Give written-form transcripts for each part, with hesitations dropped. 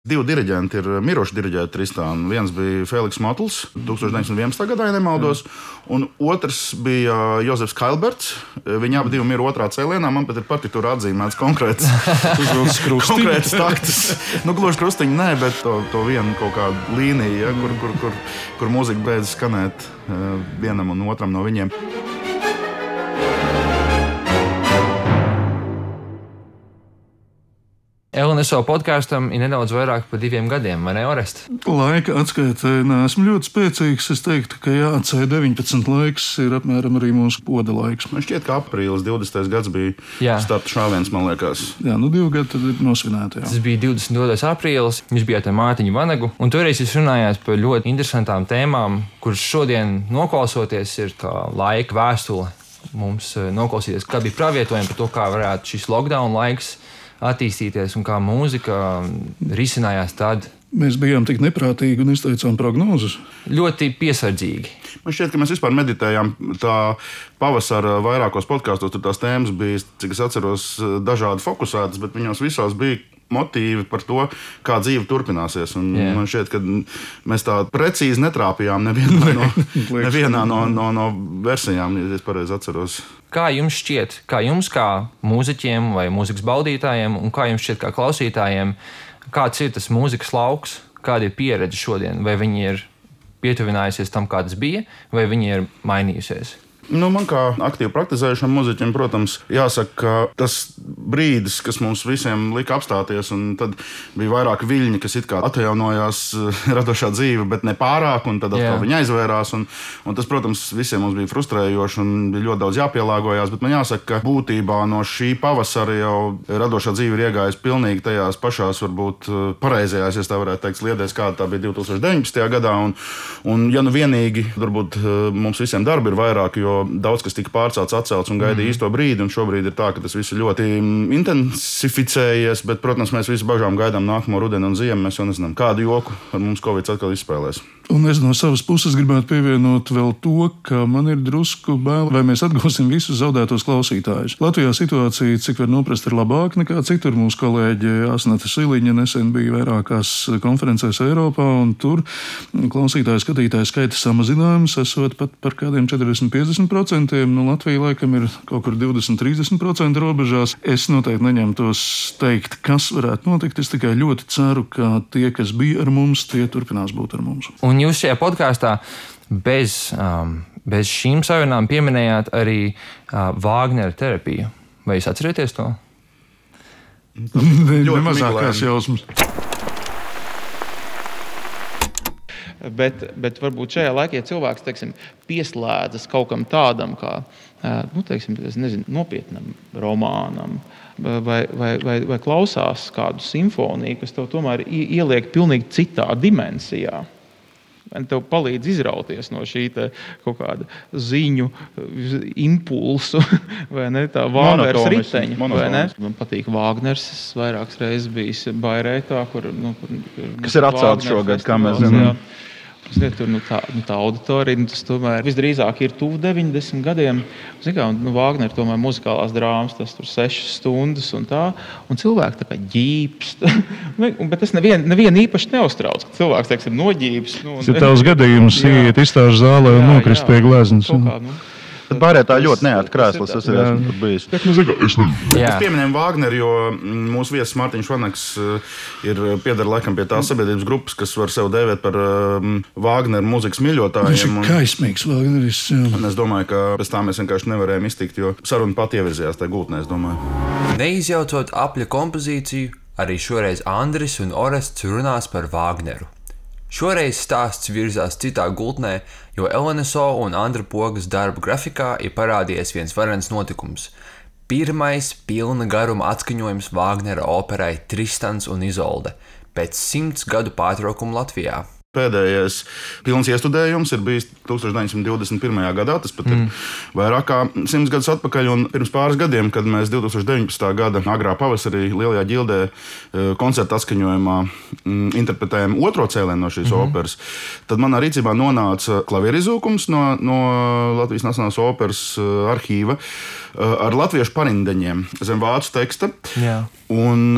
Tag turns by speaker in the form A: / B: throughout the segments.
A: Divi diriģenti ir miruši diriģēti Tristānu. Viens bija Feliks Motls 1911. gadā, ja nemaldos, un otrs bija Jozefs Kailberts. Viņi abi mir otrā cēlienā. Man pat ir partitūra atzīmēts konkrēts takts. Gluži krustiņi nē, bet to vienu kaut kādu līniju, ja, kur mūzika beidz skanēt vienam un otram no viņiem.
B: LNSO podkāstam ir nedaudz vairāk par 2 gadiem, vai ne, Orest?
C: Laika atskaitē neesmu ļoti spēcīgs. Es teiktu, ka C19 laiks ir apmēram arī mūsu poda laiks.
A: Man šķiet, ka aprīlis 20. gads bija starta šāviens, man liekas.
C: Jā, 2 gadi tad ir nosvinēti.
B: Tas bija 22. aprīlis, jūs bijāt ar Mārtiņu Vanagu, un toreiz jūs runājāt par ļoti interesantām tēmām, kuras šodien noklausoties ir kā laika vēstule mums noklausīties, kā bija pravietojumi par to, kā varētu šis lockdown laiks attīstīties un kā mūzika risinājās tad.
C: Mēs bijām tik neprātīgi un izteicām prognozes.
B: Ļoti piesardzīgi.
A: Man šķiet, ka mēs vispār meditējām tā pavasara vairākos podkāstos. Tur tās tēmas bija, cik es atceros, dažādi fokusētas, bet viņos visās bija motīvi par to, kā dzīve turpināsies. Man šķiet, ka mēs tā precīzi netrāpījām nevienā no versijām, ja es pareizi atceros.
B: Kā jums šķiet, kā mūziķiem vai mūzikas baudītājiem, un kā jums šķiet kā klausītājiem, kāds ir tas mūzikas lauks, kāda ir pieredze šodien? Vai viņi ir pietuvinājusies tam, kā tas bija, vai viņi ir mainījusies?
A: Man kā aktīvi praktizējušam mūziķim, protams, jāsaka, ka tas brīdis, kas mums visiem lika apstāties, un tad bija vairāk viļņi, kas it kā atjaunojās radošā dzīve, bet ne pārāk, un tad atkal viņi aizvērās. Un tas, protams, visiem mums bija frustrējoši un bija ļoti daudz jāpielāgojās, bet man jāsaka, ka būtībā no šī pavasara jau radošā dzīve ir iegājusi pilnīgi tajās pašās, varbūt pareizajās, ja tā varētu teikt, sliedēs, kāda tā bija 2019. gadā. Un ja nu vienīgi, varbūt mums visiem darbi ir vairāk, jo daudz kas tika pārcelts, atcelts un gaidīja īsto brīdi, un šobrīd ir tā, ka tas viss ir ļoti intensificējies, bet, protams, mēs visi bažām gaidām nākamo rudeni un ziemu. Mēs jau nezinām, kādu joku ar mums Covid atkal izspēlēs.
C: Un es no savas puses gribētu pievienot vēl to, ka man ir drusku bail, vai mēs atgūsim visus zaudētos klausītājus. Latvijā situācija, cik var noprast, ir labāka nekā citur. Mūsu kolēģe Asnata Siliņa nesen bija vairākās konferencēs Eiropā, un tur klausītāju skatītāju skaita samazinājums esot pat par kādiem 40-50%. Latvija laikam ir kaut kur 20-30% robežās. Es noteikti neņemtos teikt, kas varētu notikt. Es tikai ļoti ceru, ka tie, kas bija ar mums, tie turpinās būt ar mums.
B: Un jūs šajā podkāstā bez šīm sarunām pieminējāt arī Vāgnera terapiju. Vai jūs atcerieties to?
C: Ļoti mazākās jausmas.
D: Bet varbūt šajā laikā, ja cilvēks, teiksim, pieslēdzas kaut kam tādam, kā nopietnam romānam, vai klausās kādu simfoniju, kas tev tomēr ieliek pilnīgi citā dimensijā. Tev palīdz izrauties no šī kaut kāda ziņu impulsu, vai ne, tā Vāgners riteņa, vai ne? Man patīk Vāgners, es vairākas reizes bijis Bairētā,
A: kas ir atcelts šogad, kā mēs zinām.
D: Tur tā auditorija, tas tomēr visdrīzāk ir tuvu 90 gadiem. Vāgnera tomēr muzikālās drāmas, tas tur 6 stundas un tā, un cilvēki tā kā ģīpst. Bet tas nevienu īpaši neuztrauc, ka cilvēks, teiksim, noģīpst.
C: Tas ir tavs gadījums, iet izstāžu zālē un nokrist pie gleznas.
A: Tad Bairētā ļoti neērti krēsls, es arī esmu tur bijis. Mēs pieminējam Vāgneru, jo mūsu viesis Mārtiņš Vanags pieder laikam pie tās sabiedrības grupas, kas var sev dēvēt par Vāgneru mūzikas mīļotājiem.
C: Viņš ir kaismīgs Vāgneris.
A: Un es domāju, ka pēc tā mēs vienkārši nevarējām iztikt, jo saruna pat ievirzījās tajā gultnē, es domāju.
E: Neizjaucot apļa kompozīciju, arī šoreiz Andris un Orests runās par Vāgneru. Šoreiz stāsts virzās citā gultnē, jo LNSO un Andra Pogas darba grafikā ir parādījies viens varens notikums. Pirmais pilna garuma atskaņojums Vāgnera operai Tristans un Izolde pēc 100 gadu pārtraukuma Latvijā.
A: Pēdējais pilns iestudējums ir bijis 1921. gadā, tas pat ir vairāk kā 100 gadus atpakaļ, un pirms pāris gadiem, kad mēs 2019. gada agrā pavasarī Lielajā ģildē koncerta atskaņojumā interpretējām otro cēlienu no šīs operas, tad manā rīcībā nonāca klavierizūkums no Latvijas Nacionālās operas arhīva ar latviešu parindeņiem zem vācu teksta.
B: Jā.
A: Un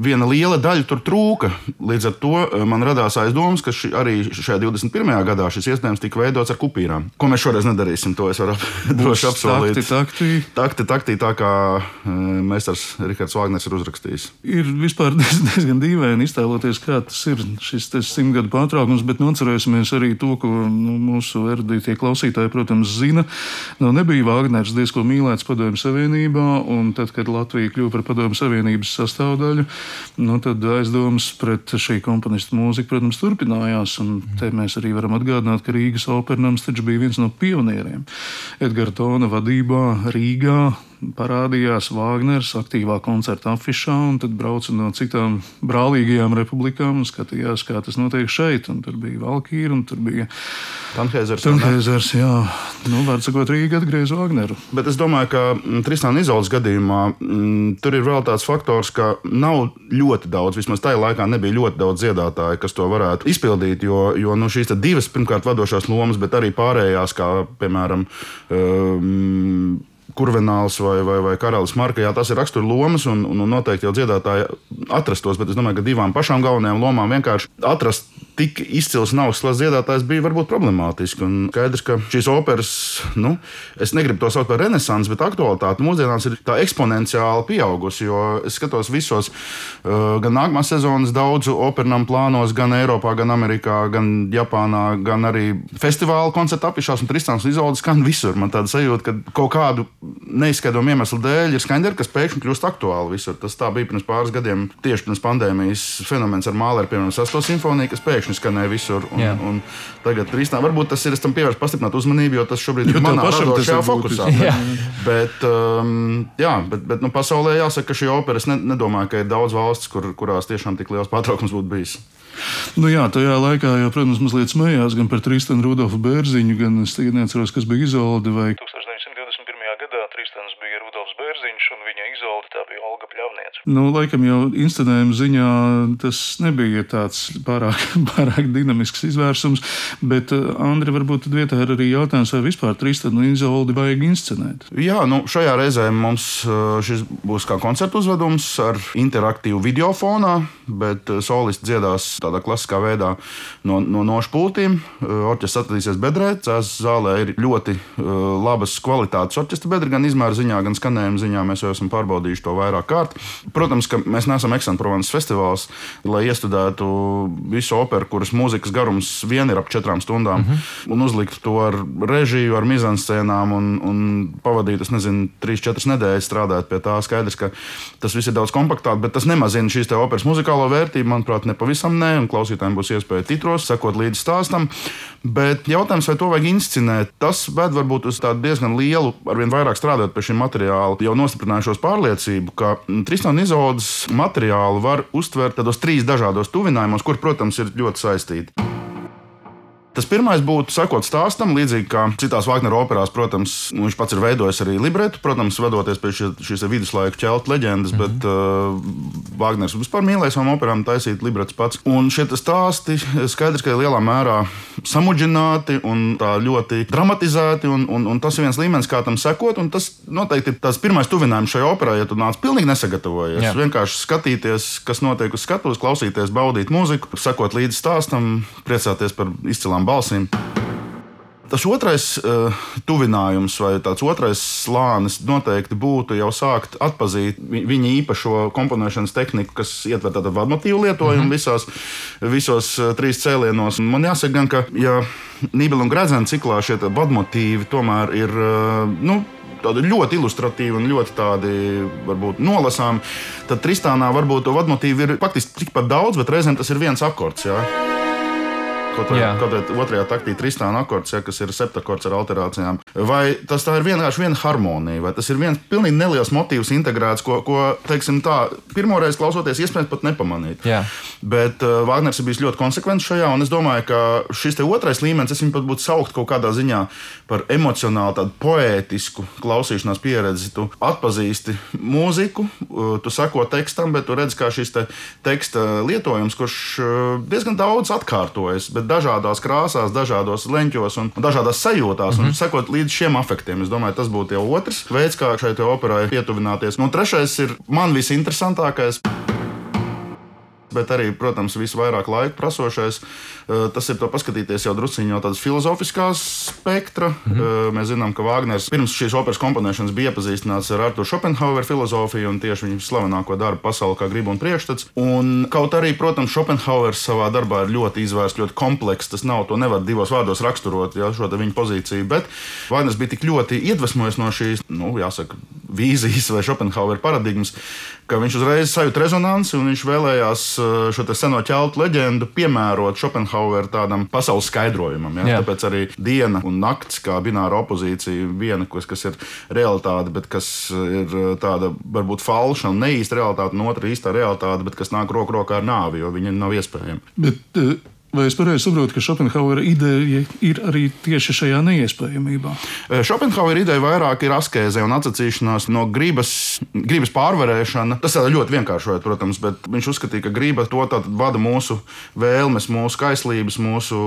A: viena liela daļa tur trūka. Līdz ar to man radās aizdomas, ka arī šajā 21. gadā šis iestudējums tika veidots ar kupīrām. Ko mēs šoreiz nedarīsim, to es varu droši apsolīt. Takti, tā kā meistars Rihards Vāgners ir uzrakstījis.
C: Ir vispār diezgan dīvaini iztēloties, kā tas ir šis 100 gadu pārtraukums, bet atcerēsimies arī to, ko mūsu erudītie klausītāji, protams, zina. Nebija Vāgners diezko mīlēts Padomju Savienībā, un tad, kad Latvija kļuva par Padomju Savienības sastāvdaļu, tad aizdomas pret šī komponista mūziku, protams, turpinājās. Un te mēs arī varam atgādināt, ka Rīgas opernams taču bija viens no pionieriem. Edgara Tona vadībā Rīgā parādījās Vāgners aktīvā koncerta afišā, un tad brauca no citām brālīgajām republikām un skatījās, kā tas notiek šeit. Un tur bija Valkīra, un tur bija Tanhēzers, jā. Var sakot, Rīga atgriez Vāgneru.
A: Bet es domāju, ka Tristāna Izoldes gadījumā tur ir vēl tāds faktors, ka nav ļoti daudz, vismaz tajā laikā nebija ļoti daudz dziedātāju, kas to varētu izpildīt, jo šīs divas pirmkārt vadošās lomas, bet arī pārējās, kā piemēram Kurvenāls vai Karalis Marka, jā, tas ir rakstura lomas, un noteikti jau dziedātāji atrastos, bet es domāju, ka divām pašām galvenajām lomām vienkārši atrast tik izcils un augsts dziedātājs bija varbūt problemātiski. Un skaidrs, ka šīs operas, es negribu to saukt par renesansi, bet aktualitāte mūsdienās ir tā eksponenciāli pieaugusi, jo es skatos visos gan nākamās sezonas daudzu opernam plānos, gan Eiropā, gan Amerikā, gan Japānā, gan arī festivāla koncerta afišās, un Tristāns un Izolde skan visur. Man tāda sajūta, ka kaut kādu neizskaidrojumu iemeslu dēļ ir skaņderi, kas pēkšņi kļūst aktuāli visur. Tas tā bija pirms pāris gadiem, tieši pirms pandēmijas fenomens ar Māleru, piemēram, 6. simfoniju, kas pēkšņi skanēja visur. Un tagad Tristāna, varbūt tas ir, es tam pievērstu pastiprināt uzmanību, jo tas šobrīd ir manā radošajā fokusā. Bet pasaulē jāsaka, ka šī opera, es nedomāju, ka ir daudz valsts, kurās tiešām tik liels pārtraukums būtu bijis.
C: Tajā laikā jau, protams, mazliet smējās gan par Tristanu Rudolfu Bērziņu, gan es tagad neatceros, kas bija Izolde vai 1921. gadā Tristans bija Rudolfs Bērziņš un viņa Izolde tā bija Olga Pļavniece. Laikam jau inscenējuma ziņā tas nebija tāds pārāk dinamisks izvērsums, bet Andri, varbūt tad vietā ir arī jautājums, vai vispār Tristanu un Izoldi vajag inscenēt?
A: Jā, šajā reizē mums šis būs kā koncertu uzvedums ar interaktīvu videofonā, bet solisti dziedās tādā klasiskā veidā no nošu pultīm. Orķestris atradīsies bedrē, Cēzas zālē ir ļoti labas kvalitātes orķestra bedra, gan izmēra ziņā, gan skanējuma ziņā. Mēs jau esam pārbaudījuši to vairāk kārt. Protams, ka mēs neesam Aix-en-Provence festivāls, lai iestudētu visu operu, kuras mūzikas garums vien ir ap 4 stundām, un uzlikt to ar režiju, ar mizanscēnām un pavadīt, 3-4 nedēļas strādāt pie tā. Skaidrs, ka tas viss ir daudz kompaktāk, bet tas nemazina šīs te operas muzikālo vērtību, manuprāt, nepavisam ne, un klausītājiem būs iespēja titros, sekot līdzi stāstam. Bet jautājums, vai to vajag inscenēt, tas ved varbūt uz tādu diezgan lielu, arvien vairāk strādājot pie šī materiāla, jau nostiprinājušos pārliecību, ka Tristāna un Izoldes materiālu var uztvert tādos 3 dažādos tuvinājumos, kur, protams, ir ļoti saistīti. Tas pirmais būtu sekot stāstam, līdzīgi kā citās Vāgnera operās, protams, viņš pats ir veidojis arī libretu, protams, vadoties pie šīs viduslaiku ķeltu leģendas, bet Vāgners vispār mīlēja savām operām taisīt libretus pats. Un šie stāsti skaidrs, ka ir lielā mērā samudžināti un tā ļoti dramatizēti, un tas ir viens līmenis, kā tam sekot, un tas noteikti ir tās pirmais tuvinājums šajā operā, ja tu nāc pilnīgi nesagatavojies. Vienkārši skatīties, kas notiek uz skatuves, klausīties, baudīt mūziku, sekot līdzi stāstam, priecāties par izcilām balsīm. Tas otrais tuvinājums vai tāds otrais slānis noteikti būtu jau sākt atpazīt viņa īpašo komponēšanas tehniku, kas ietver tādu vadmotīvu lietojumu visos 3 cēlienos. Man jāsaka gan, ka ja Nībela un Gredzena ciklā šie vadmotīvi tomēr ir tādi ļoti ilustratīvi un ļoti tādi, varbūt, nolasām, tad Tristānā varbūt to vadmotīvu ir faktiski tikpat daudz, bet reizēm tas ir viens akords, jā. kaut vai otrajā taktī Tristāna akords, kas ir septakords ar alterācijām. Vai tā ir vienkārši viena harmonija, vai tas ir viens pilnīgi neliels motīvs integrēts, ko teiksim tā, pirmoreiz klausoties, iespējams pat nepamanīt.
B: Jā.
A: Bet Vāgners ir bijis ļoti konsekvents šajā, un es domāju, ka šis te otrais līmenis, es viņu pat būtu saukt kaut kādā ziņā par emocionāli tādu poētisku klausīšanās pieredzi. Tu atpazīsti mūziku, tu seko tekstam, bet tu redz, kā šis teksta lietojums, kurš diezgan daudz atkārtojas, bet dažādās krāsās, dažādos leņķos un dažādās sajūtās, un sekot līdz šiem afektiem. Es domāju, tas būtu jau otrs veids, kā šai operai pietuvināties. Un trešais ir man visinteresantākais, bet arī, protams, visvairāk laika prasošais. Tas ir to paskatīties jau drusciņi no tādas filozofiskās spektra. Mēs zinām, ka Vāgners pirms šīs operas komponēšanas bija iepazīstināts ar Arturu Šopenhaueru filozofiju un tieši viņa slavenāko darbu Pasaule kā griba un priekšstats. Un kaut arī, protams, Šopenhauers savā darbā ir ļoti izvērsts, ļoti komplekss. Tas nav, to nevar divos vārdos raksturot, šo viņa pozīciju, bet Vāgners bija tik ļoti iedvesmojies no šīs, jāsaka, vīzijas vai Šopenhauera paradigmas, ka viņš uzreiz sajūt rezonanci un viņš vēlējās šo seno ķeltu leģendu piemērot Šopenhauera tādam pasaules skaidrojumam. Ja? Tāpēc arī diena un nakts kā bināra opozīcija, viena, kas ir realitāte, bet kas ir tāda varbūt falša un neīsta realitāte, un otra īstā realitāte, bet kas nāk roku rokā ar nāvi, jo viņa nav iespējama.
C: Bet, vai es pareizi saprotu, ka Šopenhauera ideja ir arī tieši šajā neiespējamībā?
A: Šopenhauera ideja vairāk ir askēze un atsacīšanās no gribas pārvarēšana. Tas ir ļoti vienkāršojot, protams, bet viņš uzskatīja, ka griba to vada mūsu vēlmes, mūsu kaislības, mūsu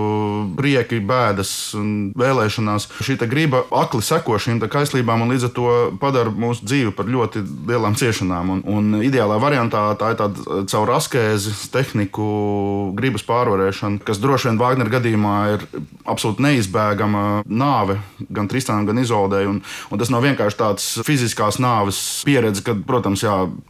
A: prieki, bēdas un vēlēšanās. Šī griba akli seko šīm kaislībām un līdz ar to padara mūsu dzīvi par ļoti lielām ciešanām. Un ideālā variantā tā ir tāda caur askēzes tehniku gribas pārvarēšana, kas droši vien Vāgnera gadījumā ir absolūti neizbēgama nāve gan Tristanam, gan Izoldei. Un tas nav vienkārši tāds fiziskās nāves pieredze, kad, protams,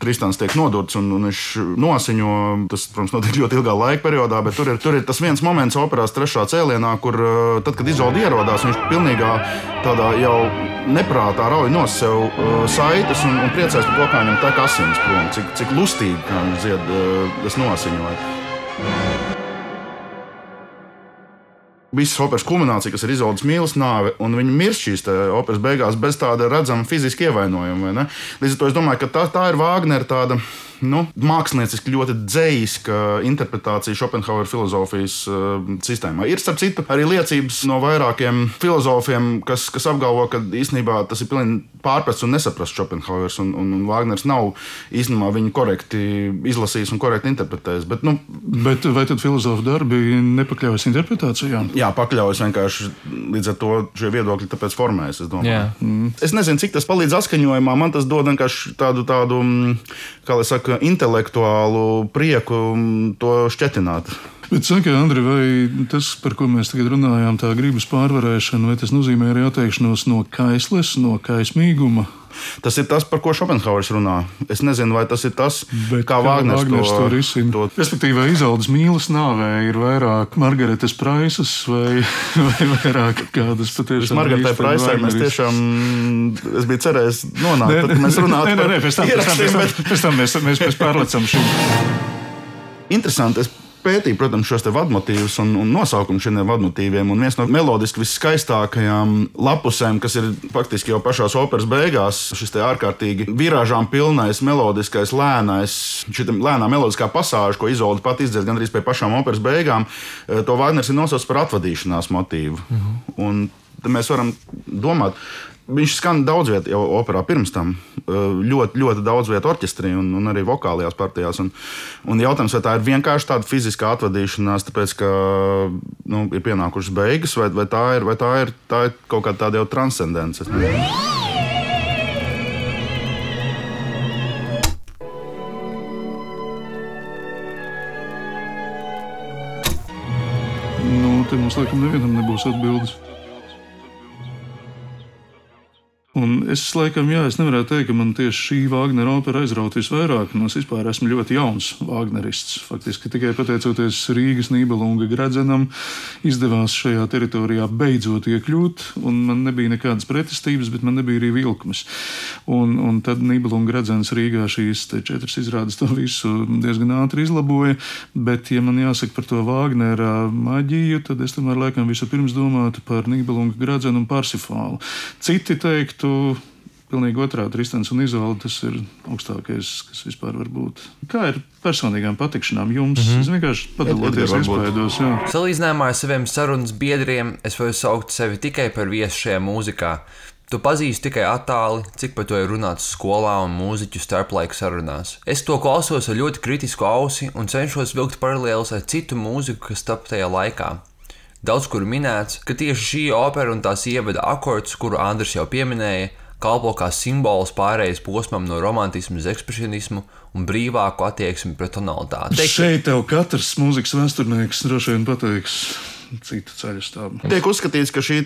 A: Tristans tiek nodurts un viņš nosiņo. Tas, protams, notiek ļoti ilgā laika periodā, bet tur ir tas viens moments operās trešā cēlienā, kur tad, kad Izolde ierodās, viņš pilnīgā tādā jau neprātā rauj no sev saites un priecājas par to, kā viņam tek asins prom, cik lustīgi, kā viņš dzied, es nosiņoju. Visas operas kulminācija, kas ir Izoldes mīlas nāve, un viņa mirst šīs operas beigās bez tāda redzama fiziska ievainojuma. Līdz ar to es domāju, ka tā ir Vāgnera tāda mākslinieciski ļoti dzējiska interpretācija Šopenhauera filozofijas sistēmā. Ir, starp citu, arī liecības no vairākiem filozofiem, kas apgalvo, ka īstenībā tas ir pilnīgi pārprasts un nesaprasts Šopenhauers, un Vāgners nav īstenībā viņu korekti izlasījis un korekti interpretējis.
C: Bet vai tad filozofu darbi nepakļaujas interpretācijām?
A: Jā, pakļaujas vienkārši līdz ar to šie viedokļi tāpēc formējas, es domāju. Es nezinu, cik tas palīdz atskaņojumā, man tas dod vienkārši tādu kā lai saka, intelektuālu prieku to šķetināt.
C: Bet saka, Andri, vai tas, par ko mēs tagad runājām, tā gribas pārvarēšana, vai tas nozīmē arī atteikšanos no kaisles, no kaismīguma?
A: Tas ir tas, par ko Šopenhauers runā. Es nezinu, vai tas ir tas, kā Vāgners to
C: risina. Respektīvi, vai Izoldes mīlas nāvē ir vairāk Margaretes Praisas vai vairāk kādas patiešām
A: Margaretē Praisai mēs tiešām, es biju cerējis nonākt, tad mēs runātu par
C: pēc tam mēs pārlecam šim.
A: Interesanti, es pētīju, protams, šos vadmotīvus un nosaukumu šiem vadmotīviem. Un viens no melodiski viskaistākajām lapusēm, kas ir faktiski jau pašās operas beigās, šis te ārkārtīgi virāžām pilnais, melodiskais, lēnais, šī lēnā melodiskā pasāža, ko Izolde pat izdzird gandrīz pie pašām operas beigām, to Vāgners ir nosaucis par atvadīšanās motīvu. Un mēs varam domāt, viņš skan daudz vietu jau operā pirms tam, ļoti, ļoti daudz vietu orķestrī un arī vokālajās partijās. Un jautājums, vai tā ir vienkārši tāda fiziskā atvadīšanās, tāpēc, ka ir pienākušas beigas, vai tā ir kaut kāda tāda jau transcendence.
C: Te mums laikam nevienam nebūs atbildes. Un Es laikam, es nevarētu teikt, ka man tieši šī Vāgnera opera aizraut visvairāk. Es vispār esmu ļoti jauns Vāgnerists. Faktiski tikai pateicoties Rīgas Nībelunga Gredzenam izdevās šajā teritorijā beidzot iekļūt, un man nebija nekādas pretestības, bet man nebija arī vilkmes. Un tad Nībelunga Gredzens Rīgā šīs 4 izrādes to visu diezgan ātri izlaboja, bet, ja man jāsaka par to Vāgnera maģiju, tad es tomēr laikam vispirms domātu par Nībelunga Gredzenu un Parsifālu. Citi teiktu, pilnīgi otrādi, Tristans un Izolde, tas ir augstākais, kas vispār var būt. Kā ir personīgām patikšanām jums? Es vienkārši padaloties iespējos.
E: Salīdzinājumā ar saviem sarunas biedriem es varu saukt sevi tikai par viesu šajā mūzikā. Tu pazīsti tikai attāli, cik par to ir runāts skolā un mūziķu starplaika sarunās. Es to klausos ar ļoti kritisku ausi un cenšos vilkt paralēlus ar citu mūziku, kas tapa tajā laikā. Daudz kur minēts, ka tieši šī opera un tās ievada akords, kuru Andris jau pieminēja, kalpo kā simbols pārējais posmam no romantismu uz ekspresionismu un brīvāku attieksmi pret tonalitāti.
C: Šeit tev katrs mūzikas vēsturnieks droši vien pateiks citu ceļu stāvu.
A: Tiek uzskatīts, ka šī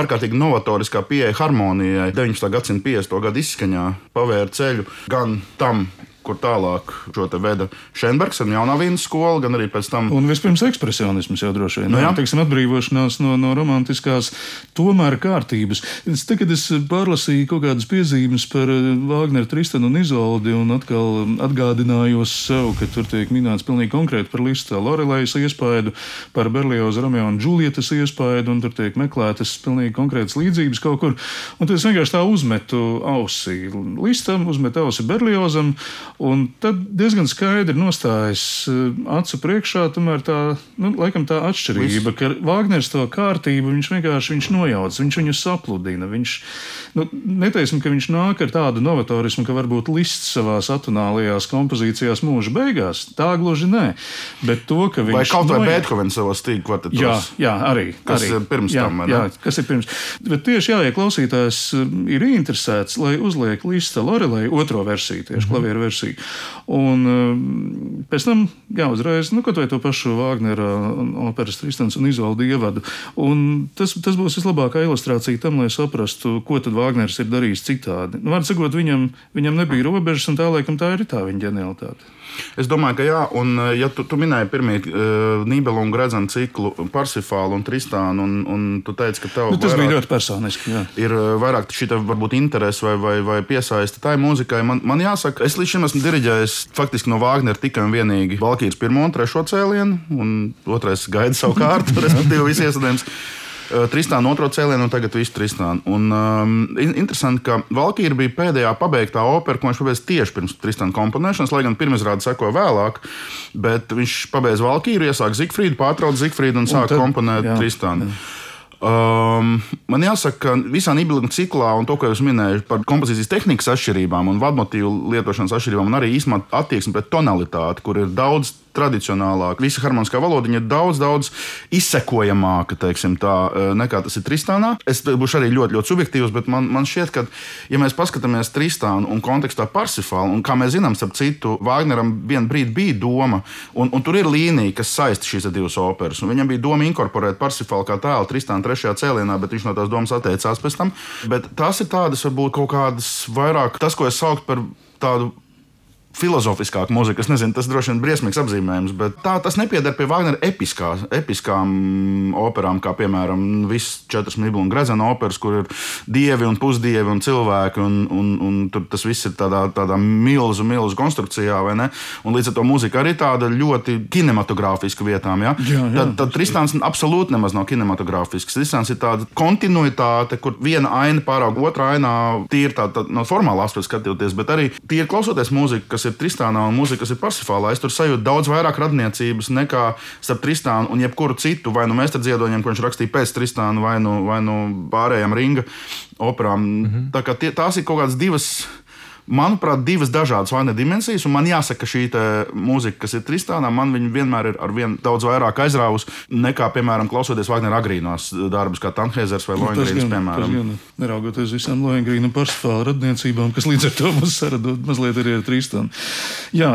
A: ārkārtīgi novatoriskā pieeja harmonijai 19. gadsimta 50. gadu izskaņā pavēra ceļu gan tam, kur tālāk šo te veda Šenbergs ar Jaunā Vīnas skolu, gan arī pēc tam.
C: Un vispirms ekspresionisms jau droši vien. Teiksim, atbrīvošanās no romantiskās tomēr kārtības. Tagad es pārlasīju kaut kādas piezīmes par Vāgneru, Tristanu un Izoldi un atkal atgādinājos sev, ka tur tiek minēts pilnīgi konkrēti par Lista Lorelejas iespaidu, par Berlioza Romeo un Džulietas iespaidu, un tur tiek meklētas pilnīgi konkrētas līdzības kaut kur. Un tad es vienkārši tā uzmetu ausi Listam, uzmetu ausi Berliozam, un tad diezgan skaidri nostājas acu priekšā tomēr tā, laikam tā atšķirība, ka Vāgners to kārtību viņš nojauc, viņš viņu sapludina. Viņš, neteiksim, ka viņš nāk ar tādu novatorismu, ka varbūt Lists savās atonālajās kompozīcijās mūža beigās. Tā gluži nē. Bet to, ka viņš
A: vai kaut vai Beethovens savos stīgu kvartetos.
C: Jā, arī.
A: Kas ir pirms tam, vai ne?
C: Jā, kas ir pirms. Bet tieši ja klausītājs ir interesēts, lai uzliek Lista Lorelei otro versiju, tieši klavieru versiju. Un pēc tam, uzreiz, kaut vai to pašu Vāgnera operas Tristans un Izolde ievadu. Un tas būs vislabākā ilustrācija tam, lai saprastu, ko tad Vāgners ir darījis citādi. Vārds sakot, viņam nebija robežas, un tā laikam tā ir tā viņa ģenialitāte.
A: Es domāju, ka jā, un ja tu minēji pirmie Nībelunga Gredzena ciklu Parsifālu un Tristānu, un tu teici, ka tev
C: tas bija ļoti personiski, jā.
A: Ir vairāk šī varbūt interese vai piesaista tai mūzikai. Man jāsaka, es līdz šim esmu diriģējis faktiski no Vāgnera tikai un vienīgi Valkīras 1. un 3. cēlienu, un 2. gaida savu kārtu, respektīvi visi iesadējums. Tristānu 2. cēlienu un tagad visu Tristānu. Un interesanti, ka Valkīra bija pēdējā pabeigtā opera, ko viņš pabeidz tieši pirms Tristāna komponēšanas, lai gan pirmizrāde sekoja vēlāk, bet viņš pabeidz Valkīru, iesāk Zigfrīdu, pārtrauc Zigfrīdu un sāk komponēt Tristānu. Man jāsaka, ka visā Nībelunga ciklā un to, ko jūs minējāt par kompozīcijas tehnikas atšķirībām un vadmotīvu lietošanas atšķirībām, un arī īstenībā attieksmi pret tonalitāti, kur ir daudz tradicionālāk. Visa harmoniskā valodiņa ir daudz izsekojamāka, teiksim tā, nekā tas ir Tristānā. Es būšu arī ļoti, ļoti subjektīvs, bet man šķiet, ka, ja mēs paskatāmies Tristānu un kontekstā Parsifālu, un kā mēs zinām, starp citu, Vāgneram vienu brīdi bija doma, un tur ir līnija, kas saista šīs divas operas, un viņam bija doma inkorporēt Parsifālu kā tēlu Tristānu 3. cēlienā, bet viņš no tās domas atteicās pēc tam. Bet tās ir tādas, varbūt kaut kādas vairāk, tas, ko es sauktu par tādu filozofiskāka mūzika. Es nezinu, tas droši vien briesmīgs apzīmējums, bet tas nepieder pie Vāgnera episkām operām, kā piemēram visas 4 Nībelunga Gredzena operas, kur ir dievi un pusdievi un cilvēki, un tur tas viss ir tādā milzu konstrukcijā, vai ne? Un līdz ar to mūzika arī tāda ļoti kinematogrāfiska vietām, ja? Tad Tristāns absolūti nemaz nav kinematogrāfisks. Tristāns ir tāda kontinuitāte, kur viena aina pāraug otrā ainā, tīri tā no formālā aspekta skatoties, bet arī tīri klausoties mūziku, kas ir Tristānā un mūzika, kas ir Parsifālā, es tur sajūtu daudz vairāk radniecības nekā starp Tristānu un jebkuru citu, vai nu meistardziedoņiem, ko viņš rakstīja pēc Tristāna, vai nu pārējām Ringa operām. Tā kā tās ir kaut kādas manuprāt, divas dažādas Vāgnera dimensijas, un man jāsaka, ka šī mūzika, kas ir Tristānā, man viņa vienmēr ir ar vien daudz vairāk aizrāvusi nekā, piemēram, klausoties Vāgnera agrīnos darbus, kā Tanheizers vai Lohengrīns, piemēram.
C: Neraugoties visām Lohengrīna un Parsifāla radniecībām, kas līdz ar to mums saradot mazliet arī ar Tristānu. Jā,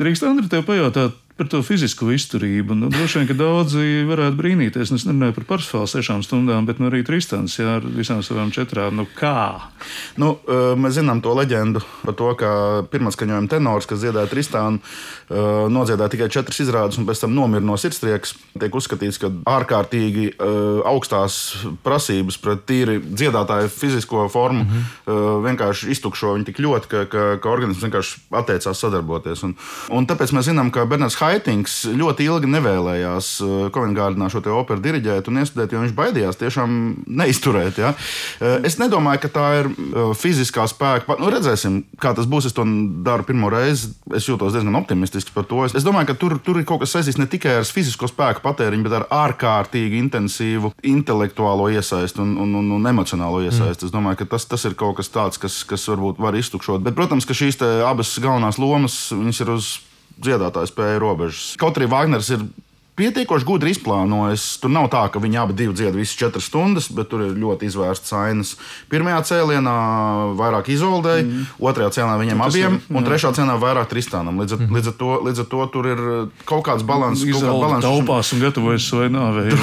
C: drīkst, Andri, tev pajautāt par to fizisko izturību. Nu, droši vien, ka daudzi varētu brīnīties. Es nerunāju par Parsifālu 6 stundām, bet arī Tristans, jā, ar visām savām 4. Nu, kā?
A: Nu, mēs zinām to leģendu par to, ka pirmatskaņojuma tenors, kas dziedāja Tristanu, nodziedāja tikai 4 izrādes un pēc tam nomira no sirdstrieks. Tiek uzskatīts, ka ārkārtīgi augstās prasības pret tīri dziedātāju fizisko formu vienkārši iztukšo viņu tik ļoti, ka organisms vienkārši atteicās sadarboties. Un tāpēc mēs zinām, ka Bernards Haitings ļoti ilgi nevēlējās Covent Gardenā šo te operu diriģēt un iestudēt, jo viņš baidījās tiešām neizturēt. Ja? Es nedomāju, ka tā ir fiziskā spēka. Nu, redzēsim, kā tas būs. Es to daru pirmo reizi. Es jūtos diezgan optimistiski par to. Es domāju, ka tur ir kaut kas saistīts ne tikai ar fizisko spēku patēriņu, bet ar ārkārtīgi intensīvu intelektuālo iesaisti un emocionālo iesaisti. Es domāju, ka tas ir kaut kas tāds, kas varbūt var iztukšot. Bet, protams, ka šīs abas galvenās lomas, viņas ir uz dziedātāju spēju robežas. Kaut arī Vāgners ir pietiekoši gudri izplānojis. Tur nav tā, ka viņi abi dzied visas 4 stundas, bet tur ir ļoti izvērstas ainas. Pirmajā cēlienā vairāk Izoldei, otrajā cēlienā viņiem abiem, un trešā cēlienā vairāk Tristanam. Līdz ar to tur ir kaut kāds balans.
C: Izolda taupās un gatavojas savai nāvei.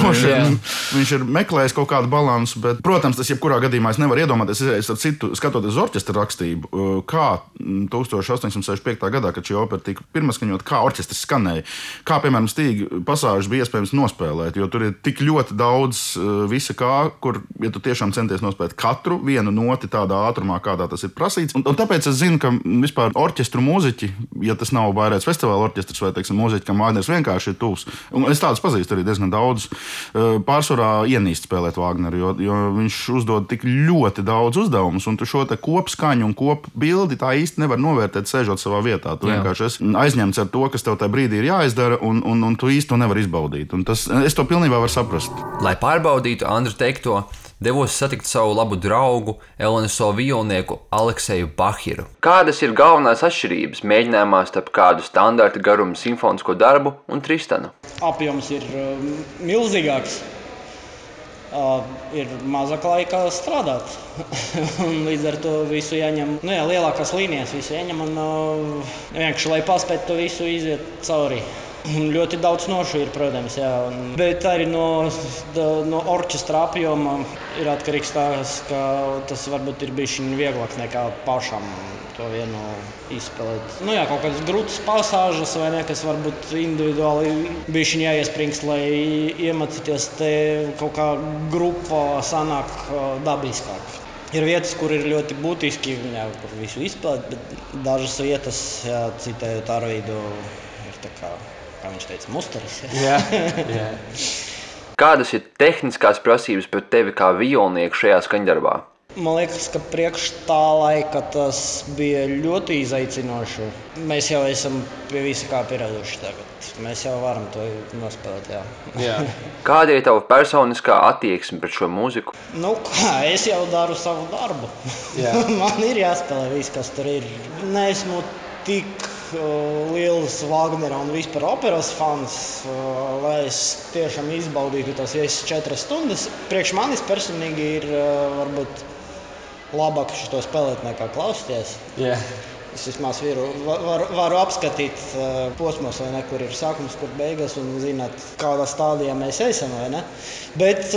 A: Viņš ir meklējis kaut kādu balansu, bet, protams, tas jebkurā gadījumā es nevaru iedomāties, skatoties uz orķestra rakstību, kā 1865. gadā, kad šī opera tika pirmaskaņot, kā orķestris skanēja, kā, piemēram, Stīga pasāžas bija iespējams nospēlēt, jo tur ir tik ļoti daudz visa kā, kur, ja tu tiešām centies nospēlēt katru vienu noti tādā ātrumā, kādā tas ir prasīts. Un tāpēc es zinu, ka vispār orķestru mūziķi, ja tas nav Bairētas festivāla orķestrs vai, teiksim, mūziķi, kam Vāgners vienkārši ir tuvs. Un es tādus pazīstu arī diezgan daudz. Pārsvarā ienīst spēlēt Vāgneru, jo viņš uzdod tik ļoti daudz uzdevumus, un tu šo te kopskaņu un kopbildi tā īsti nevar novērtēt, sēžot savā vietā. Tu vienkārši esi aizņemts ar to, kas tev tajā brīdī ir jāizdara, un tu īsti to nevar izbaudīt. Un es to pilnībā varu saprast.
E: Lai pārbaudītu Andra teikto, devos satikt savu labu draugu, LNSO violnieku Alekseju Bahiru. Kādas ir galvenās atšķirības mēģinājumā starp kādu standarta garuma simfonisko darbu un Tristanu?
F: Apjoms ir milzīgāks. Ir mazāk laika strādāt. Līdz ar to visu jāņem, lielākās līnijas visu jāņem un vienkārši, lai paspētu to visu iziet cauri. Un ļoti daudz nošu ir, protams, jā. Bet arī no orķestra apjoma ir atkarīgs tās, ka tas varbūt ir bijis vieglāks nekā pašam to vienu izspēlēt. Kaut kādas grūtas pasāžas vai ne, kas varbūt individuāli bijis jāiespringst, lai iemācīties te kaut kā grupa sanāk dabiskāk. Ir vietas, kur ir ļoti būtiski, kur visu izspēlēt, bet dažas vietas, citējot Arvīdu, ir tā kā viņš teica, musteris.
E: Jā. Kādas ir tehniskās prasības pret tevi kā violnieku šajā skaņdarbā?
F: Man liekas, ka priekš tā laika tas bija ļoti izaicinoši. Mēs jau esam pie visa kā pieraduši tagad. Mēs jau varam to nospēlēt, jā.
E: Kāda ir tava personiskā attieksme pret šo mūziku?
F: Es jau daru savu darbu. Man ir jāspēlē viss, kas tur ir. Neesmu tik liels Vāgnera un vispār operas fans, lai es tiešām izbaudītu tās 4 stundas. Priekš manis personīgi ir varbūt labāk šo spēlēt nekā klausīties. Es vismaz varu apskatīt posmos, vai ne, kur ir sākums, kur beigas un zināt, kādā stādijā mēs esam, vai ne. Bet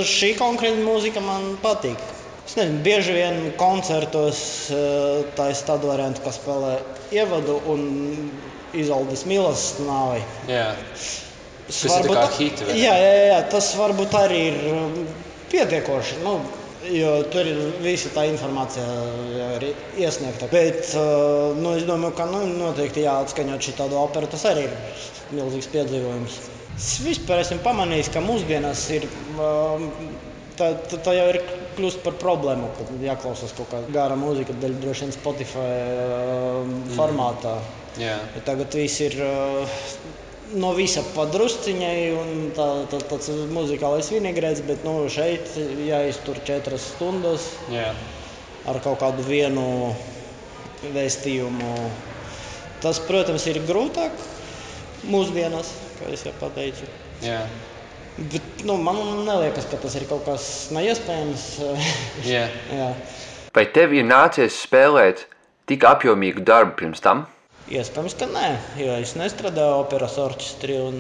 F: šī konkrēta mūzika man patīk. Es nezinu, bieži vien koncertos tā ir tāda varianta, kas spēlē ievadu un Izoldes Milas nāvi.
E: Tas ir tā kā hiti, vai ne?
F: Jā, tas varbūt arī ir pietiekoši, jo tur ir visa tā informācija ir iesniegta. Bet es domāju, ka noteikti jāatskaņot šī tādu operu, tas arī ir milzīgs piedzīvojums. Es vispār esmu pamanījis, ka mūsdienās ir tā jau ir kļūst par problēmu, kad jāklausās kaut kā gara mūzika, droši vien Spotify formātā. Tagad viss ir no visa padrusciņai un tāds muzikālais vinegreits, bet šeit jāiztur 4 stundas ar kaut kādu vienu vēstījumu. Tas, protams, ir grūtāk mūsdienās, kā es jau pateicu. Bet man neliekas, ka tas ir kaut kas neiespējams.
E: Vai tev ir nācies spēlēt tik apjomīgu darbu pirms tam?
F: Iespējams, ka nē, jo es nestrādāju operas orķestrī un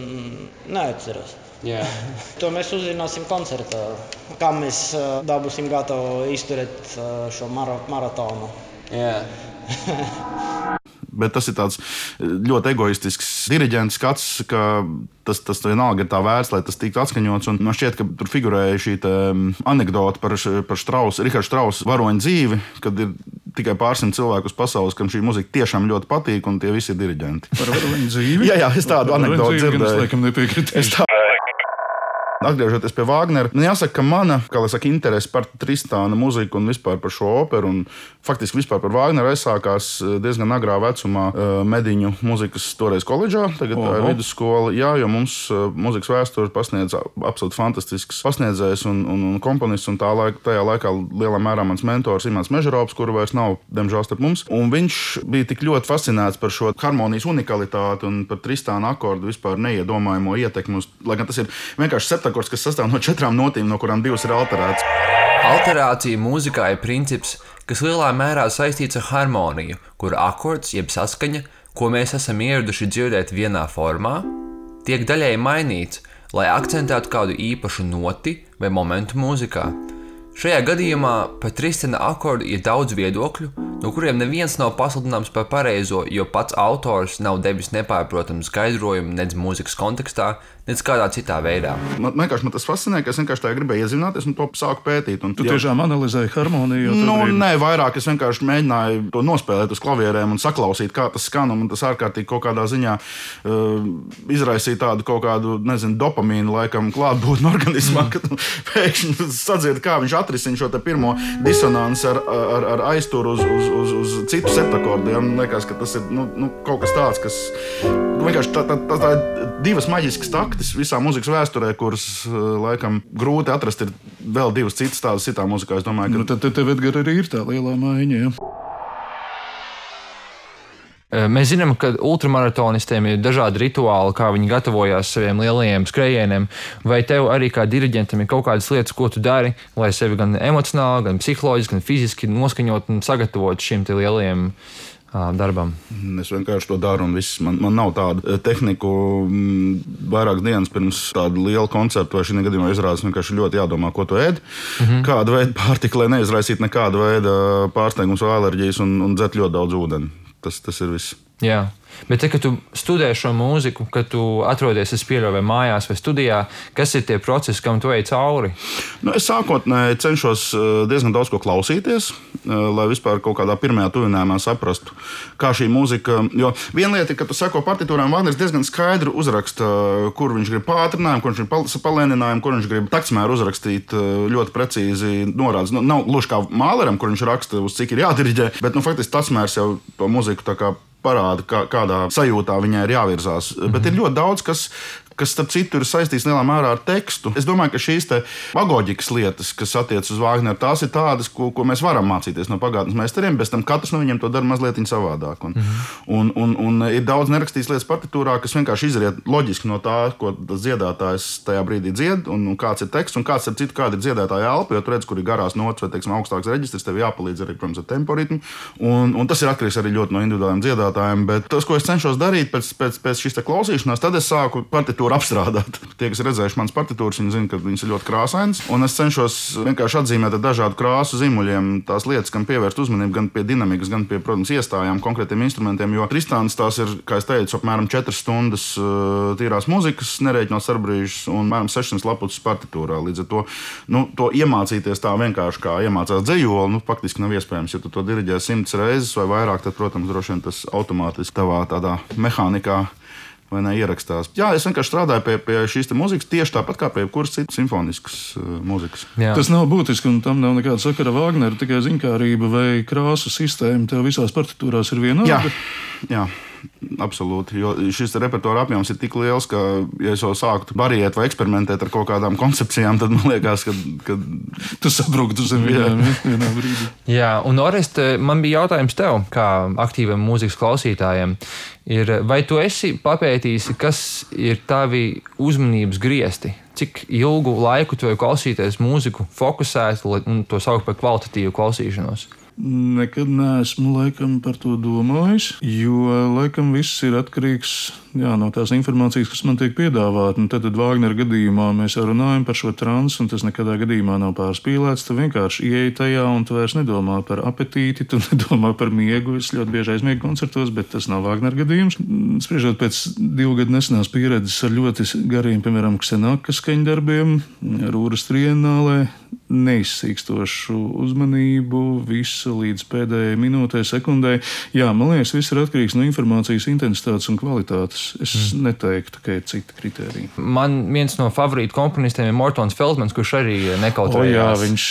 F: neatceros.
G: Jā.
F: To mēs uzzināsim koncertā, kā mēs dabūsim gatavu izturēt šo maratonu.
G: Jā.
A: Bet tas ir tāds ļoti egoistisks diriģents skats, ka tas vienalga ir tā vērts, lai tas tiktu atskaņots. Un man šķiet, ka tur figurēja šī anekdote par Strausu, Rihardu Strausu varoņu dzīvi, kad ir tikai pārsimt cilvēku uz pasaules, kam šī muzika tiešām ļoti patīk, un tie visi ir diriģenti.
C: Par varoņu dzīvi?
A: Jā, es tādu anekdoti dzirdēju.
C: Es laikam nepiekritīšu.
A: Atgriežoties pie Vāgnera, jāsaka, ka mana interese par Tristāna muziku un vispār par šo operu, un faktiski vispār par Vāgneru aizsākās diezgan agrā vecumā Mediņu muzikas toreiz koledžā, tagad tā ir vidusskola. Jā, jo mums muzikas vēsturi pasniedz absolūti fantastisks pasniedzējs un komponists, un tajā laikā lielā mērā mans mentors Imants Mežarops, kuru vairs nav, diemžēl, starp mums. Un viņš bija tik ļoti fascinēts par šo harmonijas unikalitāti un par Tristāna akordu vispār neiedomājamo ietekmi uz, lai gan tas ir vienkārši septakords, kas sastāv no 4 notīm, no kurām 2 ir alterētas.
E: Alterācija mūzikā ir princips, kas lielā mērā saistīts ar harmoniju, kura akords jeb saskaņa, ko mēs esam ieraduši dzirdēt vienā formā, tiek daļēji mainīts, lai akcentētu kādu īpašu noti vai momentu mūzikā. Šajā gadījumā par Tristāna akordu ir daudz viedokļu, no kuriem neviens nav pasludināms par pareizo, jo pats autors nav devis nepārprotamu skaidrojumu nedz mūzikas kontekstā, nedz kādā citā veidā.
A: Man tas fascinē, ka es vienkārši tā gribēju iezināties un to sāku pētīt.
C: Tu tiešām analizēji harmoniju?
A: Nē, vairāk es vienkārši mēģināju to nospēlēt uz klavierēm un saklausīt, kā tas skan, un tas ārkārtīgi kaut kādā ziņā izraisīja tādu kaut kādu, dopamīnu laikam klātbūtni organismā, kad pēkšņi sadzird, kā viņš atrisina šo te pirmo disonanci ar aizturu uz citu septakordiem. Liekas, ka tas ir kaut kas tāds, kas vienkārši tā ir 2 maģiskas taktis visā mūzikas vēsturē, kuras laikam grūti atrast ir vēl 2 citas tādas citā muzikā. Es domāju, ka
C: tad tev, Edgar, arī ir tā lielā maiņa, ja?
B: Mēs zinām, ka ultramaratonistiem ir dažādi rituāli, kā viņi gatavojās saviem lielajiem skrējieniem. Vai tev arī kā diriģentam ir kaut kādas lietas, ko tu dari, lai sevi gan emocionāli, gan psiholoģiski, gan fiziski noskaņot un sagatavot šim te lielajiem darbam?
A: Es vienkārši to daru, un viss. Man nav tāda tehnika. Vairākas dienas pirms tāda liela koncerta vai šī gadījumā izrādes vienkārši ļoti jādomā, ko tu ēd. Kādu veidu pārtika, lai neizraisītu nekādu veidu pārsteigums vai alerģijas, un dzert ļoti daudz ūdeni. Tas ir viss.
B: Jā, bet kad tu studē šo mūziku, kad tu atrodies, es pieļauju, vai mājās vai studijā, kas ir tie procesi, kam tu ej cauri?
A: Es sākotnēji cenšos diezgan daudz ko klausīties, lai vispār kaut kādā pirmajā tuvinājumā saprastu, kā šī mūzika. Jo viena lieta ir, ka tu seko partitūrām, Vāgners diezgan skaidri uzraksta, kur viņš grib pātrinājumu, kur viņš grib palēninājumu, kur viņš grib taktsmēru uzrakstīt ļoti precīzi norādes. Nav gluži kā Māleram, kur viņš raksta, uz cik ir jādiriģē, bet faktiski taktsmērs jau to mūziku tā kā parāda, kādā sajūtā viņai ir jāvirzās. Bet ir ļoti daudz, kas starp citu ir saistīts lielā mērā ar tekstu. Es domāju, ka šīs pedagoģikas lietas, kas attiecas uz Vāgneru, tās ir tādas, ko mēs varam mācīties no pagātnes meistariem, bet tam katrs no viņiem to dara mazliet savādāk. Un ir daudz nerakstītas lietas partitūrā, kas vienkārši izriet loģiski no tā, ko tas dziedātājs tajā brīdī dzied, un kāds ir teksts, un kāds ir kāda ir dziedātāja elpa, jo tu redz, kur ir garās nots vai, augstāks reģistrs, tev jāpalīdz arī, protams, ar temporitmu. Un tas ir atkarīgs arī ļoti no individuāliem dziedātājiem, bet tas, ko es cenšos darīt pēc šīs klausīšanās, tad es sāku partitūru apstrādāt. Tie, kas ir redzējuši manas partitūras, viņi zina, ka viņas ir ļoti krāsainas. Un es cenšos vienkārši atzīmēt ar dažādu krāsu zīmuļiem tās lietas, kam pievērst uzmanību gan pie dinamikas, gan pie, protams, iestājām konkrētiem instrumentiem. Jo Tristāns tās ir, kā es teicu, apmēram 4 stundas tīrās muzikas, nerēķinot starpbrīžus, un apmēram 600 lapuses partitūrā. Līdz ar to, to iemācīties tā vienkārši kā iemācās dzejoli, faktiski nav iespējams. Ja tu to diriģē 100 reizes vai vairāk, tad, protams, droši vien tas automātiski tavā tādā mehānikā vai ne ierakstās. Jā, es vienkārši strādāju pie šīs mūzikas tieši tāpat kā pie jebkuras citas simfoniskas mūzikas.
C: Jā. Tas nav būtiski, un tam nav nekāda sakara Vāgnera, tikai ziņkārība vai krāsu sistēma. Tev visās partitūrās ir vienāda?
A: Jā. Absolūti, jo šis repertuāra apjoms ir tik liels, ka, ja es jau sāktu variēt vai eksperimentēt ar kaut kādām koncepcijām, tad man liekas, ka
C: tu sabruktu zem vienā brīdī.
B: Jā, un Orest, man bija jautājums tev, kā aktīvam mūzikas klausītājiem, vai tu esi papētījis, kas ir tavi uzmanības griesti? Cik ilgu laiku tu vari klausīties mūziku fokusēt un to saukt par kvalitatīvu klausīšanos?
C: Nekad neesmu laikam par to domājis, jo laikam viss ir atkarīgs no tās informācijas, kas man tiek piedāvāta. Tad Vāgnera gadījumā mēs jau runājam par šo transu, un tas nekādā gadījumā nav pārspīlēts. Tu vienkārši ieej tajā, un tu vairs nedomā par apetīti, tu nedomā par miegu. Es ļoti bieži aizmiegu koncertos, bet tas nav Vāgnera gadījums. Spriežot pēc 2 gadu nesenās pieredzes ar ļoti gariem, piemēram, Ksenakas skaņdarbiem, Rūras trienālē, neizsīkstošu uzmanību, visu līdz pēdējai minūtei, sekundei. Jā, man liekas, viss ir atkarīgs no informācijas intensitātes un kvalitātes. Es neteiktu, ka ir citi kriteriji.
B: Man viens no favorītu komponistiem ir Mortons Feldmans, kurš arī nekautrējās.
C: Jā, viņš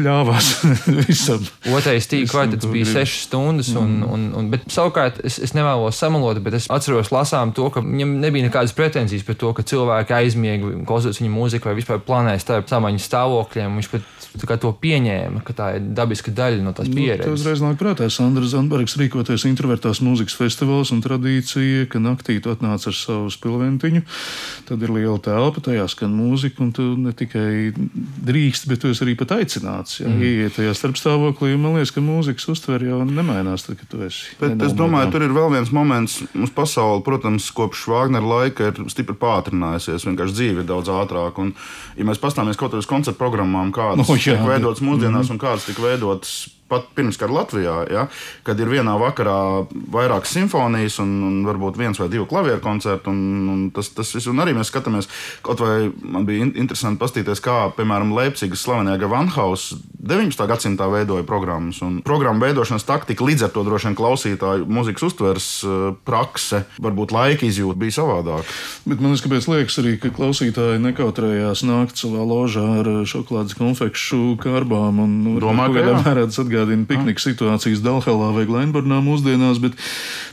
C: ļāvās visam.
B: Otrais tīk kvartets bija 6 stundas, bet savukārt es nevēlos samalot, bet es atceros lasām to, ka viņam nebija nekādas pretenzijas par to, ka cilvēki aizmiega, klausoties viņa mūziku vai vispār planēja starp samaņas stāvokļiem. Viņš pat to pieņēma, ka tā ir dabiska daļa no tās pieredzes.
C: Tas uzreiz nāk prātā Sandra Zandbergs rīkoties introvertās mūzikas festivāls un tradīcija, ka naktī tu atnāc ar savu spilventiņu, tad ir liela telpa, tajā skan mūzika, un tu ne tikai drīkst, bet tu esi arī pat aicināts. Ieiet tajā starpstāvoklī, un man liekas, ka mūzikas uztver jau nemainās, tad, kad tu esi.
A: Bet es domāju, tur ir vēl viens moments. Mums pasaule, protams, kopš Vāgnera laika ir stipri pātrinājusies, vienkārši dzīve ir daudz ātrāk. Un, ja mēs pastāmies kaut kādas koncertu programmām, kādas tiek veidotas mūsdienās un kādas tika veidotas pat pirms kara Latvijā, ja, kad ir vienā vakarā vairākas simfonijas un varbūt 1 vai 2 klavieru koncerti. Un tas viss, un arī mēs skatāmies, kaut vai man bija interesanti paskatīties, kā, piemēram, Leipzigas slavenajā Gewandhaus 19. gadsimtā veidoja programmas. Un programmu veidošanas taktika, līdz ar to droši vien klausītāju mūzikas uztveres prakse, varbūt laika izjūta bija savādāk.
C: Bet man liekas arī, ka klausītāji nekautrējās nākt savā ložā ar šokolādes konfekšu kārbām un
A: domāju, ka
C: atgādina piknika situācijas Dalhalā vai Glenburnā mūsdienās, bet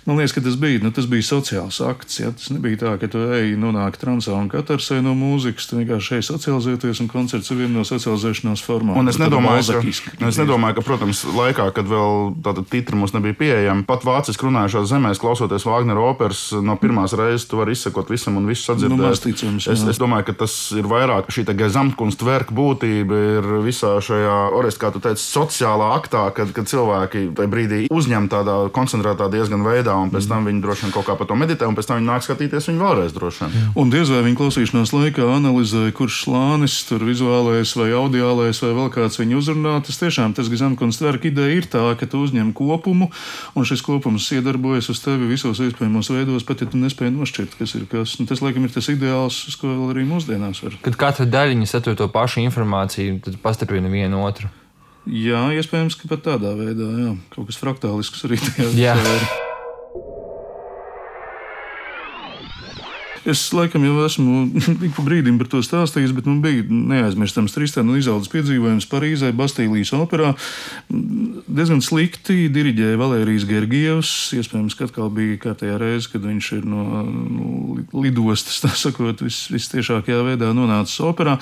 C: man liekas, ka tas bija sociāls akts. Ja? Tas nebija tā, ka tu ej nonāk transā un katarsē no mūzikas, tu vienkārši ej socializēties, un koncerts ir viena no socializēšanās formām.
A: Un es nedomāju, ka, protams, laikā, kad vēl tāda titra mums nebija pieejama, pat vāciski runājušās zemēs, klausoties Vāgnera operas, no pirmās reizes tu vari izsekot visam un visu sadzirdēt. Es domāju, ka tas ir vairāk šī Gesamtkunstwerka būtība ir visā šajā, Orest, kā tu teici, sociālā aktā, kad cilvēki tajā brīdī uzņem tādā koncentrētā diezgan veidā, un pēc tam viņi droši vien kaut kā par to meditē, un pēc tam viņi nāk skatīties viņu vēlreiz droši vien.
C: Un diez vai viņa klausīšanās laikā analizē, kurš slānis, tur vizuālais vai audiālais vai vēl kāds viņu uzrunā. Tas tiešām tas Gesamtkunstwerka ideja ir tā, ka tu uzņem kopumu, un šis kopums iedarbojas uz tevi visos iespējamos veidos, pat ja tu nespēji nošķirt, kas ir kas. Un tas, laikam, ir tas ideāls, uz ko vēl arī mūsdienās var.
B: Kad katra daļiņa satur to pašu informāciju, tad pastiprina vienu otru.
C: Jā, iespējams, ka pat tādā veidā, jā. Kaut kas fraktālisks arī tajā ir. Es laikam jau esmu ik pa brīdim par to stāstījis, bet man bija neaizmirstams Tristana un Izoldas piedzīvojums Parīzē, Bastīlijas operā. Diezgan slikti diriģēja Valērijas Gergievs. Iespējams, ka atkal bija kārtējā reize, kad viņš ir no lidostas, tā sakot, vistiešākajā veidā nonācis operā.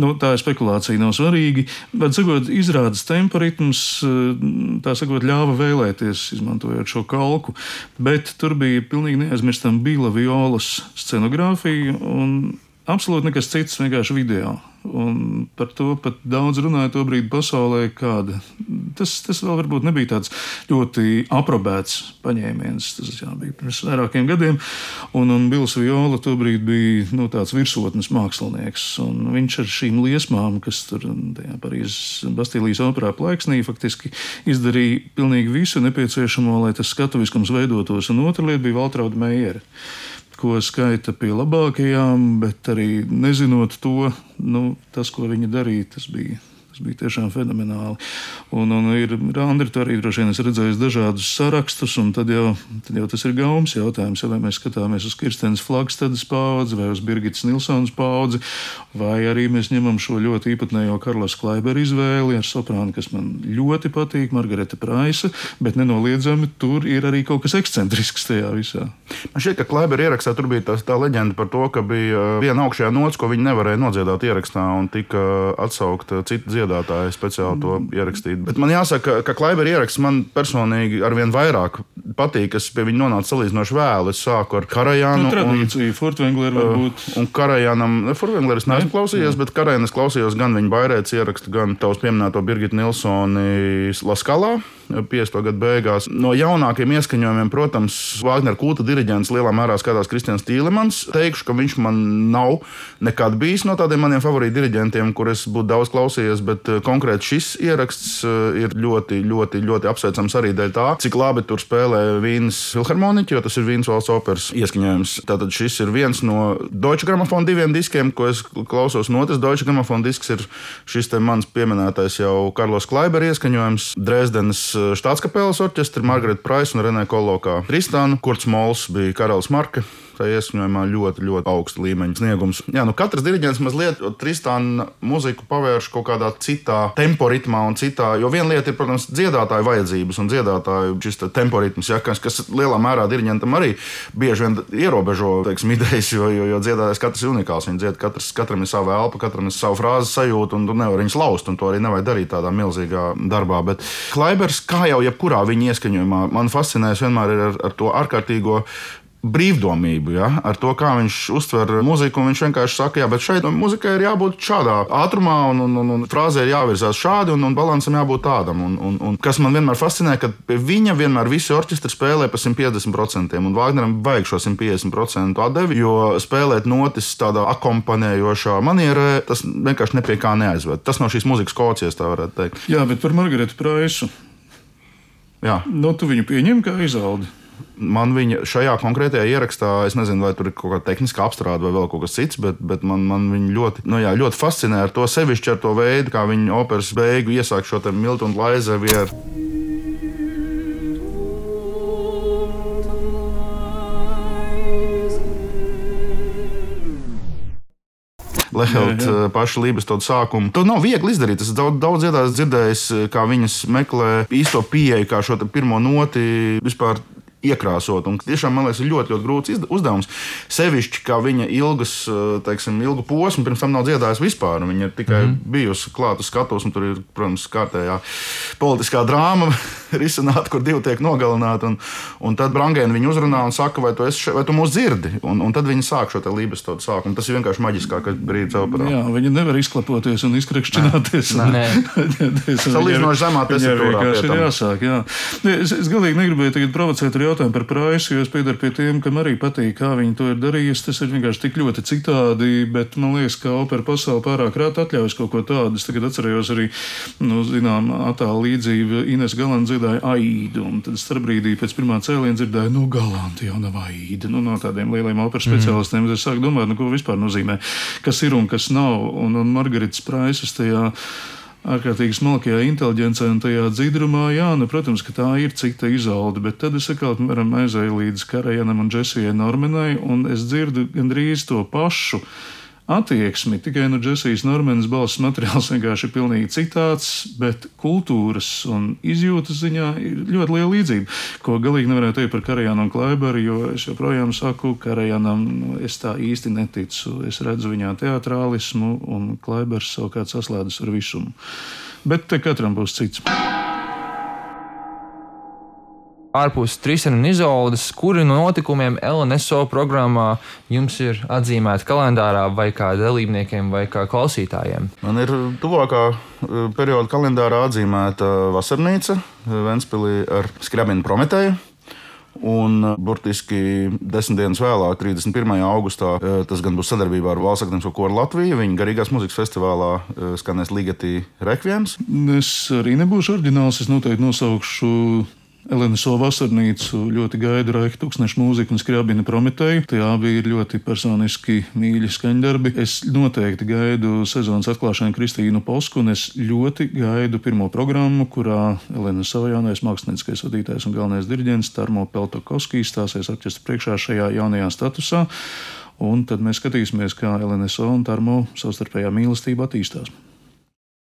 C: Tā ir spekulācija, nav svarīgi. Bet, sakot, izrādes tempa ritms, tā sakot, ļāva vēlēties, izmantojot šo kalku. Bet tur bija pilnīgi neaizmirstam Bila Violas scenogrāfija un absolūti nekas cits, vienkārši video. Un par to pat daudz runāja to brīdi pasaulē, kāda. Tas vēl varbūt nebija tāds ļoti aprobēts paņēmiens. Tas bija pirms vairākiem gadiem. Un Bils Viola to brīdi bija tāds virsotnes mākslinieks. Un viņš ar šīm liesmām, kas tur tajā Parīzes Bastīlijas operā plaiksnī, faktiski izdarīja pilnīgi visu nepieciešamo, lai tas skatuviskums veidotos. Un otra lieta bija Valtrauda Meiere, ko skaita pie labākajām, bet arī nezinot to, tas, ko viņa darīja, tas bija tiešām fenomenāli. Un Andri, tu arī droši vien esi redzējis dažādus sarakstus, un tad jau tas ir gaumas jautājums, vai mēs skatāmies uz Kirstenes Flagstedes paudzi, vai uz Birgitas Nilsonas paudzi, vai arī mēs ņemam šo ļoti īpatnējo Karlas Klaibera izvēli ar soprānu, kas man ļoti patīk, Margareta Praisa, bet nenoliedzami tur ir arī kaut kas ekscentrisks tajā visā.
A: Man šķiet, ka Klaibera ierakstā tur bija tā leģenda par to, ka bija viena augšējā nots, ko viņi nevarēja nodziedāt ierakstā, un tika atsaukta cita dziedātāji speciāli to ierakstīt. Bet man jāsaka, ka Klaibera ieraksts man personīgi arvien vairāk patīk. Es pie viņa nonācu salīdzinoši vēlu. Es sāku ar Karajānu.
C: Tradīcija, Furtwängleru varbūt.
A: Un Karajānam, Furtwängleru es neesmu klausījies, bet Karajānu es klausījos gan viņa Bairētas ierakstu, gan tavs pieminēto Birgitu Nilsoni La Scalā. 50. gadu beigās. No jaunākiem ieskaņojumiem, protams, Vāgnera kulta diriģents lielā mērā skatās Kristians Tīlemans. Teikšu, ka viņš man nav nekad bijis no tādiem maniem favorītu diriģentiem, kur es būtu daudz klausījies, bet konkrēti šis ieraksts ir ļoti, ļoti, ļoti apsveicams arī dēļ tā, cik labi tur spēlē Vīnes filharmoniķi, jo tas ir Vīnes valsts operas ieskaņojums. Tātad šis ir viens no Deutsche Grammophon 2 diskiem, ko es klausos. Un otrs Deutsche Grammophon disks ir šis te mans pieminētais jau Karlos Klaiber ieskaņojums, Dresdenes Štātskapeles orķestra, Margareta Praisa un Renē Kolokā Tristānu, Kurts Mols bija karalis Marke. Tā ieskaņojumā ļoti, ļoti augsta līmeņa sniegums. Jā, katrs diriģents mazliet Tristāna muziku pavērš kaut kādā citā tempo ritmā un citā, jo viena lieta ir, protams, dziedātāju vajadzības un dziedātāju šis tempo ritms, ja, kas lielā mērā diriģentam arī bieži vien ierobežo, teiksim, idejas, jo dziedātājs katrs ir unikāls. Viņi dzied, katram ir sava elpa, katram ir sava frāze sajūta, un tu nevari viņus laust, un to arī nevajag darīt tādā milzīgā darbā. Bet Klaibers, kā jau jebkurā viņa ieskaņojumā, man fascinējas vienmēr ir ar to ārkārtīgo brīvdomību, ja? Ar to, kā viņš uztver muziku. Viņš vienkārši saka, jā, bet šeit muzikai ir jābūt šādā ātrumā, un frāzē ir jāvirzās šādi, un balansam jābūt tādam. Un kas man vienmēr fascinē, ka pie viņa vienmēr visi orķestri spēlē pa 150%, un Vāgneram vajag šo 150% atdevi, jo spēlēt notis tādā akompanējošā manierē, tas vienkārši nepie kā neaizved. Tas no šīs muzikas kocijas, tā varētu teikt.
C: Jā, bet par Margaretu Praisu.
A: Jā.
C: Tu viņu pieņem kā Izoldi?
A: Man viņa šajā konkrētajā ierakstā, es nezinu, vai tur ir kaut kāda tehniska apstrāde vai vēl kaut kas cits, bet man viņa ļoti, ļoti fascinē ar to sevišķi ar to veidu, kā viņa operas beigu iesāk šo te Miltu un Laizevieru. Lehelt pašu Lībestodu sākumu. To nav viegli izdarīt. Es daudz dzirdējis, kā viņas meklē īsto pieeju, kā šo pirmo noti vispār iekrāsot. Un tiešām, man liekas, ir ļoti, ļoti grūts uzdevums. Sevišķi, kā viņa ilgu posmu pirms tam nav dziedājusi vispār. Viņa ir tikai bijusi klāt uz skatuves, un tur ir, protams, kārtējā politiskā drāma risināta, kur divi tiek nogalināti. Un tad Brangēna viņu uzrunā un saka, vai tu mūs dzirdi? Un tad viņi sāk šo te Lībestodu sākumu. Tas ir vienkārši maģiskākais brīdis operā.
C: Jā, viņi nevar izklapoties un izkrekšķināties.
A: Salīdzinoši zemā tesiturā pie tam.
C: Jāsāk, jā. Es galīgi negribēju tagad provocēt ar jautājumu par Praisu, jo es piedaru pie tiem, kam arī patīk, kā viņi to ir darījusi. Tas ir vienkārši tik ļoti citādi, bet man liekas, ka opera pasaule pārāk rāt atļaujas kaut ko tādu. Es tagad atcerējos arī, attālu līdzību Ines Galanta dziedāja Aidu, un tad starpbrīdī pēc pirmā cēliena dzirdēju, Galanta jau nav Aida. No tādiem lieliem operas speciālistiem es sāku domāt, ko vispār nozīmē, kas ir un kas nav. Un Margaretas Praisas tajā ārkārtīgi smalkajā inteliģencē un tajā dzidrumā, protams, ka tā ir cita Izolde, bet tad es atkal aizēju līdz Karajanam un Džesijai Normanai, un es dzirdu gandrīz to pašu attieksmi, tikai no Džesijas Normanas balss materiāls vienkārši ir pilnīgi citāds, bet kultūras un izjūtas ziņā ir ļoti liela līdzība, ko galīgi nevarētu teikt par Karajanu un Klaiberu, jo es joprojām saku, Karajanam es tā īsti neticu. Es redzu viņā teatrālismu, un Klaibers savukārt saslēdzas ar visumu. Bet te katram būs cits.
B: Ārpus Tristāna un Izoldes, kuri no notikumiem LNSO programmā jums ir atzīmēti kalendārā vai kā dalībniekiem vai kā klausītājiem?
A: Man ir tuvākā perioda kalendārā atzīmēta Vasarnīca Ventspilī ar Skriabinu Prometēju. Un burtiski 10 dienas vēlāk, 31. augustā, tas gan būs sadarbībā ar Valsts akadēmisko koru Latviju. Viņa garīgās mūzikas festivālā skanēs Ligeti Rekviems.
C: Es arī nebūšu oriģināls, es noteikti nosaukšu LNSO Vasarnīcu, ļoti gaidu Raika Tūkstneša mūziku un Skriabina Prometēju. Tie abi ir ļoti personiski mīļi skaņdarbi. Es noteikti gaidu sezonas atklāšanu Kristīnu Posku, un es ļoti gaidu pirmo programmu, kurā LNSO jaunais mākslinieckais vadītājs un galvenais diriģents Tarmo Peltokovskijs stāsies orķestra priekšā šajā jaunajā statusā. Un tad mēs skatīsimies, kā LNSO un Tarmo savstarpējā mīlestība attīstās.